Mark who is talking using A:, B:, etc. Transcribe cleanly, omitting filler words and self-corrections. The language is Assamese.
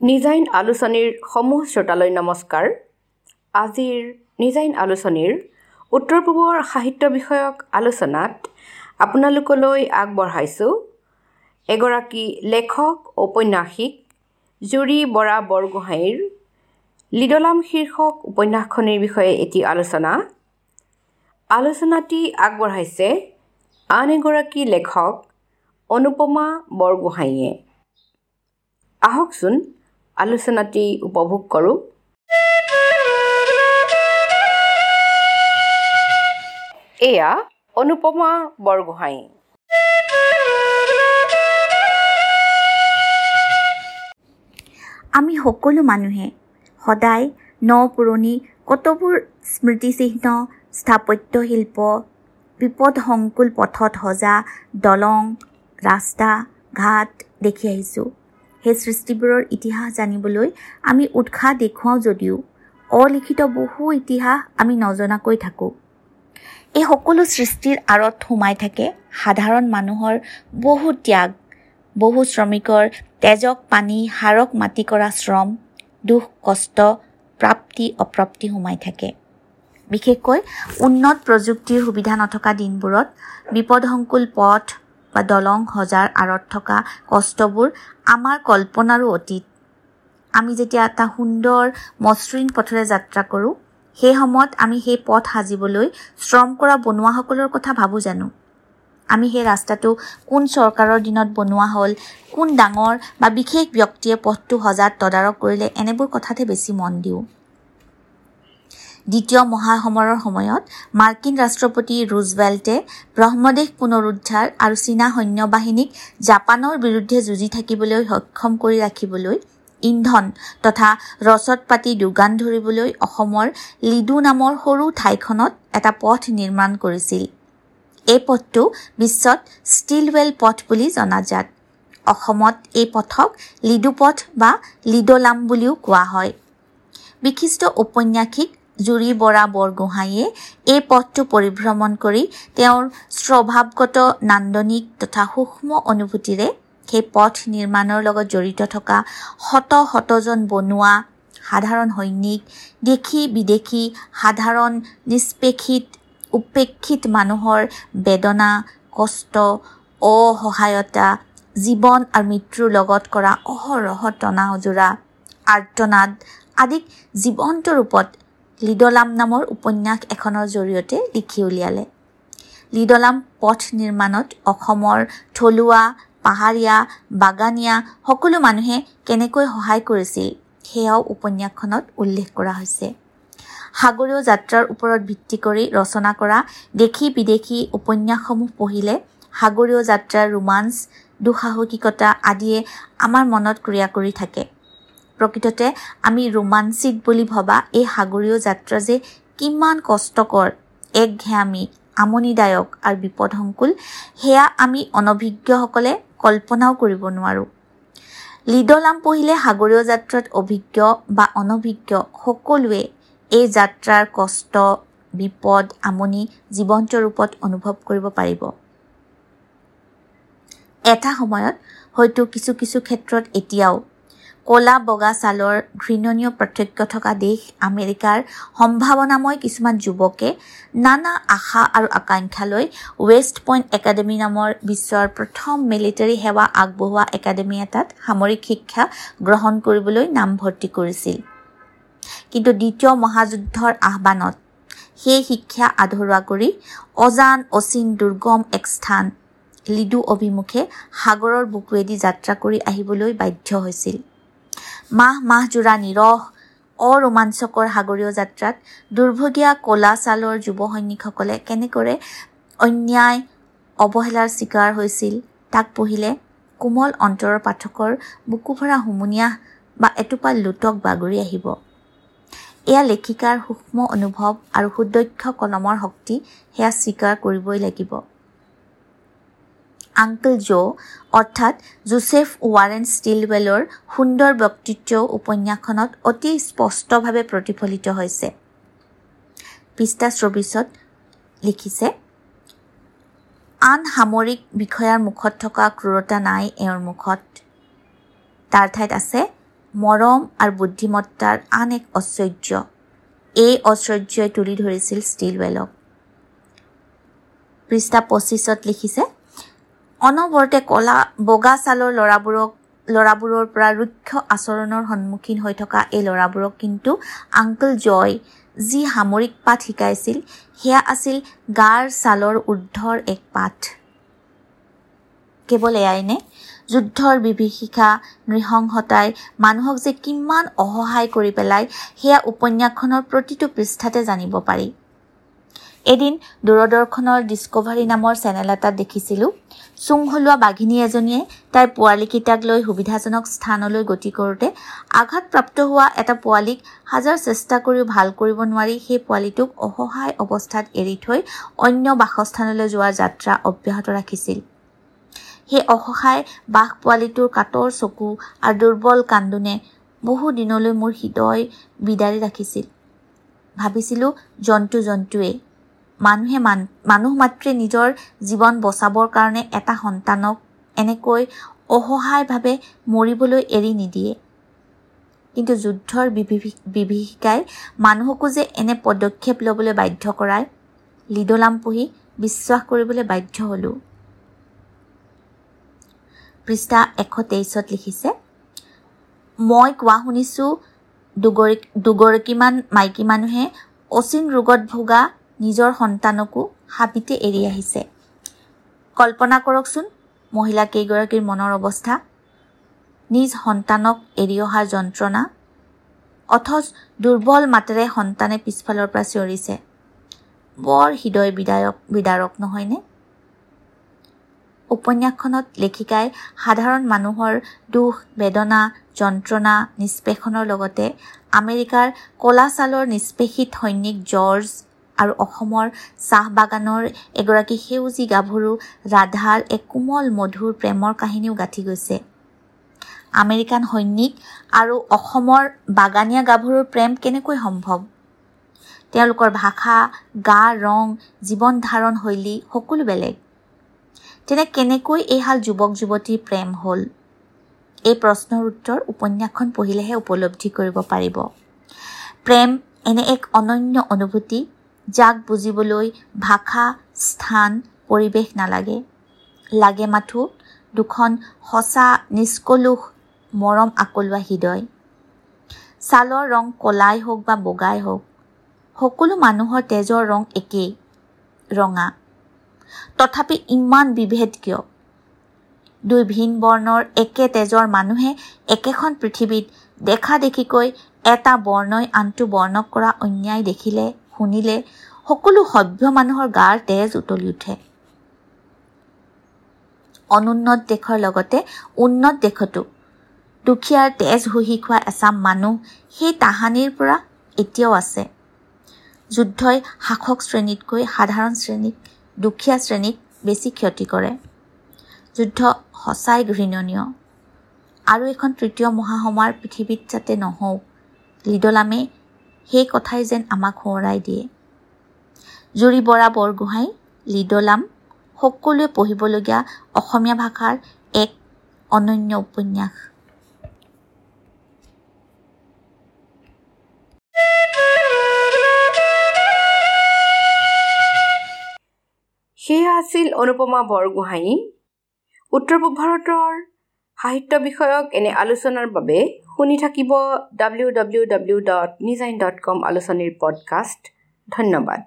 A: নিজাইন আলোচনীৰ সমূহ শ্ৰোতালৈ নমস্কাৰ। আজিৰ নিজাইন আলোচনীৰ উত্তৰ পূবৰ সাহিত্য বিষয়ক আলোচনাত আপোনালোকলৈ আগবঢ়াইছোঁ এগৰাকী লেখক ঔপন্যাসিক জুৰি বৰা বৰগোহাঁইৰ লিডলাম শীৰ্ষক উপন্যাসখনিৰ বিষয়ে এটি আলোচনা। আলোচনাটি আগবঢ়াইছে আন এগৰাকী লেখক অনুপমা বৰগোহাঁইয়ে। আহকচোন আলোচনাটি উপভোগ কৰোঁ। এয়া অনুপমা বৰগোহাঁই।
B: আমি সকলো মানুহে সদায় ন পুৰণি কতবোৰ স্মৃতিচিহ্ন, স্থাপত্য শিল্প, বিপদসংকুল পথত সজা দলং, ৰাস্তা ঘাট দেখি আহিছোঁ। সেই সৃষ্টিবোৰৰ ইতিহাস জানিবলৈ আমি উৎসাহ দেখুৱাওঁ যদিও অলিখিত বহু ইতিহাস আমি নজনাকৈ থাকোঁ। এই সকলো সৃষ্টিৰ আঁৰত সোমাই থাকে সাধাৰণ মানুহৰ বহু ত্যাগ, বহু শ্ৰমিকৰ তেজক পানী, হাড়ক মাটি কৰা শ্ৰম, দুখ কষ্ট, প্ৰাপ্তি অপ্ৰাপ্তি সোমাই থাকে। বিশেষকৈ উন্নত প্ৰযুক্তিৰ সুবিধা নথকা দিনবোৰত বিপদসংকুল পথ বা দলং সজাৰ আঁৰত থকা কষ্টবোৰ আমাৰ কল্পনাৰো অতীত। আমি যেতিয়া এটা সুন্দৰ মসৃণ পথেৰে যাত্ৰা কৰোঁ, সেই সময়ত আমি সেই পথ সাজিবলৈ শ্ৰম কৰা বনোৱাসকলৰ কথা ভাবোঁ জানো? আমি সেই ৰাস্তাটো কোন চৰকাৰৰ দিনত বনোৱা হ'ল, কোন ডাঙৰ বা বিশেষ ব্যক্তিয়ে পথটো সজাত তদাৰক কৰিলে, এনেবোৰ কথাতহে বেছি মন দিওঁ। দ্বিতীয় মহাসমৰৰ সময়ত মাৰ্কিন ৰাষ্ট্ৰপতি ৰুজভেল্টে ব্ৰহ্মদেশ পুনৰুদ্ধাৰ আৰু চীনা সৈন্যবাহিনীক জাপানৰ বিৰুদ্ধে যুঁজি থাকিবলৈ সক্ষম কৰি ৰাখিবলৈ ইন্ধন তথা ৰচদ পাতি যোগান ধৰিবলৈ অসমৰ লিডু নামৰ সৰু ঠাইখনত এটা পথ নিৰ্মাণ কৰিছিল। এই পথটো বিশ্বত ষ্টিলৱেল পথ বুলি জনাজাত। অসমত এই পথক লিডু পথ বা লিডলাম বুলিও কোৱা হয়। বিশিষ্ট ঔপন্যাসিক জুৰি বৰা বৰগোহাঁইয়ে এই পথটো পৰিভ্ৰমণ কৰি তেওঁৰ স্বভাৱগত নান্দনিক তথা সূক্ষ্ম অনুভূতিৰে সেই পথ নিৰ্মাণৰ লগত জড়িত থকা শত শতজন বনোৱা, সাধাৰণ সৈনিক, দেশী বিদেশী, সাধাৰণ নিষ্পেষিত উপেক্ষিত মানুহৰ বেদনা, কষ্ট, অসহায়তা, জীৱন আৰু মৃত্যুৰ লগত কৰা অহৰহ টনা আজোৰা, আৰ্তনাদ আদিক জীৱন্ত ৰূপত লিডলাম নামৰ উপন্যাস এখনৰ জৰিয়তে লিখি উলিয়ালে। লিডলাম পথ নিৰ্মাণত অসমৰ থলুৱা, পাহাৰীয়া, বাগানীয়া সকলো মানুহে কেনেকৈ সহায় কৰিছিল সেয়াও উপন্যাসখনত উল্লেখ কৰা হৈছে। সাগৰীয় যাত্ৰাৰ ওপৰত ভিত্তি কৰি ৰচনা কৰা দেশী বিদেশী উপন্যাসসমূহ পঢ়িলে সাগৰীয় যাত্ৰাৰ ৰোমাঞ্চ, দুঃসাহসিকতা আদিয়ে আমাৰ মনত ক্ৰিয়া কৰি থাকে। প্ৰকৃততে আমি ৰোমাঞ্চিক বুলি ভবা এই সাগৰীয় যাত্ৰা যে কিমান কষ্টকৰ, একঘেয়ামী, আমনিদায়ক আৰু বিপদসংকুল, সেয়া আমি অনভিজ্ঞসকলে কল্পনাও কৰিব নোৱাৰোঁ। লিডলাম পঢ়িলে সাগৰীয় যাত্ৰাত অভিজ্ঞ বা অনভিজ্ঞ সকলোৱে এই যাত্ৰাৰ কষ্ট, বিপদ, আমনি জীৱন্ত ৰূপত অনুভৱ কৰিব পাৰিব। এটা সময়ত হয়তো কিছু কিছু ক্ষেত্ৰত এতিয়াও ক'লা বগা ছালৰ ঘৃণনীয় পাৰ্থক্য থকা দেশ আমেৰিকাৰ সম্ভাৱনাময় কিছুমান যুৱকে নানা আশা আৰু আকাংক্ষা লৈ ৱেষ্ট পইণ্ট একাডেমি নামৰ বিশ্বৰ প্ৰথম মিলিটাৰী সেৱা আগবঢ়োৱা একাডেমি এটাত সামৰিক শিক্ষা গ্ৰহণ কৰিবলৈ নামভৰ্তি কৰিছিল। কিন্তু দ্বিতীয় মহাযুদ্ধৰ আহ্বানত সেই শিক্ষা আধৰুৱা কৰি অজান অচিন দুৰ্গম এক স্থান লিডু অভিমুখে সাগৰৰ বুকুৱেদি যাত্ৰা কৰি আহিবলৈ বাধ্য হৈছিল। মাহ মাহজোৰা নিৰহ অৰোমাঞ্চকৰ সাগৰীয় যাত্ৰাত দুৰ্ভগীয়া ক'লা ছালৰ যুৱ সৈনিকসকলে কেনেদৰে অন্যায় অৱহেলাৰ চিকাৰ হৈছিল তাক পঢ়িলে কোমল অন্তৰৰ পাঠকৰ বুকু ভৰা হুমুনিয়াহ বা এটোপাল লোটক বাগৰি আহিব। এয়া লেখিকাৰ সূক্ষ্ম অনুভৱ আৰু সুদক্ষ কলমৰ শক্তি, সেয়া স্বীকাৰ কৰিবই লাগিব। আংকল জো অৰ্থাৎ জোচেফ ৱাৰেন ষ্টিলৱেলৰ সুন্দৰ ব্যক্তিত্ব উপন্যাসখনত অতি স্পষ্টভাৱে প্ৰতিফলিত হৈছে। পৃষ্ঠা 24ত লিখিছে, আন সামৰিক বিষয়াৰ মুখত থকা ক্ৰূৰতা নাই এওঁৰ মুখত, তাৰ ঠাইত আছে মৰম আৰু বুদ্ধিমত্তাৰ আন এক ঐশ্বৰ্য। এই ঐশ্বৰ্যই তুলি ধৰিছিল ষ্টিলৱেলক। পৃষ্ঠা 25ত লিখিছে, অনবৰতে কলা বগা ছালৰ ল'ৰাবোৰৰ পৰা ৰুক্ষ আচৰণৰ সন্মুখীন হৈ থকা এই ল'ৰাবোৰক কিন্তু আংকল জয় যি সামৰিক পাঠ শিকাইছিল সেয়া আছিল গাৰ ছালৰ ঊৰ্ধৰ এক পাঠ। কেৱল এয়াইনে? যুদ্ধৰ বিভীষিকা, নৃশংসতাই মানুহক যে কিমান অসহায় কৰি পেলায় সেয়া উপন্যাসখনৰ প্ৰতিটো পৃষ্ঠাতে জানিব পাৰি। এদিন দূৰদৰ্শনৰ ডিস্কভাৰী নামৰ চেনেল এটাত দেখিছিলোঁ, চুং হলোৱা বাঘিনী এজনীয়ে তাইৰ পোৱালীকেইটাক লৈ সুবিধাজনক স্থানলৈ গতি কৰোঁতে আঘাতপ্ৰাপ্ত হোৱা এটা পোৱালীক হাজাৰ চেষ্টা কৰিও ভাল কৰিব নোৱাৰি সেই পোৱালীটোক অসহায় অৱস্থাত এৰি থৈ অন্য বাসস্থানলৈ যোৱাৰ যাত্ৰা অব্যাহত ৰাখিছিল। সেই অসহায় বাঘ পোৱালীটোৰ কাতৰ চকু আৰু দুৰ্বল কান্দোনে বহু দিনলৈ মোৰ হৃদয় বিদাৰি ৰাখিছিল। ভাবিছিলোঁ জন্তু জন্তুৱেই, মানুহে মানুহ মাত্ৰে নিজৰ জীৱন বচাবৰ কাৰণে এটা সন্তানক এনেকৈ অসহায়ভাৱে মৰিবলৈ এৰি নিদিয়ে। কিন্তু যুদ্ধৰ বিভীষিকাই মানুহকো যে এনে পদক্ষেপ ল'বলৈ বাধ্য কৰায়, লিডলাম পঢ়ি বিশ্বাস কৰিবলৈ বাধ্য হ'লোঁ। পৃষ্ঠা 123ত লিখিছে, মই কোৱা শুনিছোঁ দুগৰাকীমান মাইকী মানুহে অচিন ৰোগত ভোগা নিজৰ সন্তানকো হাবিতে এৰি আহিছে। কল্পনা কৰকচোন মহিলা কেইগৰাকীৰ মনৰ অৱস্থা, নিজ সন্তানক এৰি অহাৰ যন্ত্ৰণা, অথচ দুৰ্বল মাতেৰে সন্তানে পিছফালৰ পৰা চিঞৰিছে। বৰ হৃদয় বিদাৰক নহয়নে? উপন্যাসখনত লেখিকাই সাধাৰণ মানুহৰ দুখ, বেদনা, যন্ত্ৰণা, নিষ্পেষণৰ লগতে আমেৰিকাৰ ক'লা ছালৰ নিষ্পেষিত সৈনিক জৰ্জ আৰু অসমৰ চাহ বাগানৰ এগৰাকী সেউজী গাভৰু ৰাধাৰ এক কোমল মধুৰ প্ৰেমৰ কাহিনীও গাঁঠি গৈছে। আমেৰিকান সৈনিক আৰু অসমৰ বাগানীয়া গাভৰুৰ প্ৰেম কেনেকৈ সম্ভৱ? তেওঁলোকৰ ভাষা, গা ৰং, জীৱন ধাৰণ শৈলী সকলো বেলেগ। তেনে কেনেকৈ এইহাল যুৱক যুৱতীৰ প্ৰেম হ'ল? এই প্ৰশ্নৰ উত্তৰ উপন্যাসখন পঢ়িলেহে উপলব্ধি কৰিব পাৰিব। প্ৰেম এনে এক অনন্য অনুভূতি যাক বুজিবলৈ ভাষা, স্থান, পৰিৱেশ নালাগে, লাগে মাথো দুখন সঁচা নিষ্কলুষ মৰম আকলোৱা হৃদয়। ছালৰ ৰং ক'লাই হওক বা বগাই হওক, সকলো মানুহৰ তেজৰ ৰং একেই, ৰঙা। তথাপি ইমান বিভেদ কিয়? দুই ভিন বৰ্ণৰ একে তেজৰ মানুহে একেখন পৃথিৱীত দেখা দেখিকৈ এটা বৰ্ণই আনটো বৰ্ণক কৰা অন্যায় দেখিলে, শুনিলে সকলো সভ্য মানুহৰ গাৰ তেজ উতলি উঠে। অনুন্নত দেশৰ লগতে উন্নত দেশতো দুখীয়াৰ তেজ শুহি খোৱা এচাম মানুহ সেই তাহানিৰ পৰা এতিয়াও আছে। যুদ্ধই শাসক শ্ৰেণীতকৈ সাধাৰণ শ্ৰেণীক, দুখীয়া শ্ৰেণীক বেছি ক্ষতি কৰে। যুদ্ধ সঁচাই ঘৃণনীয় আৰু এখন তৃতীয় মহাসমাৰ পৃথিৱীত যাতে নহওক, লিডলামে সেই কথাই যেন আমাক সোঁৱৰাই দিয়ে। জুৰি বৰা বৰগোহাঁই, লিডলাম সকলোৱে পঢ়িবলগীয়া অসমীয়া ভাষাৰ এক অনন্য উপন্যাস।
A: সেয়া আছিল অনুপমা বৰগোহাঁই। উত্তৰ পূব ভাৰতৰ সাহিত্য বিষয়ক এনে আলোচনাৰ বাবে শুনি থাকিব www.nijain.com আলোচনীৰ পডকাষ্ট। ধন্যবাদ।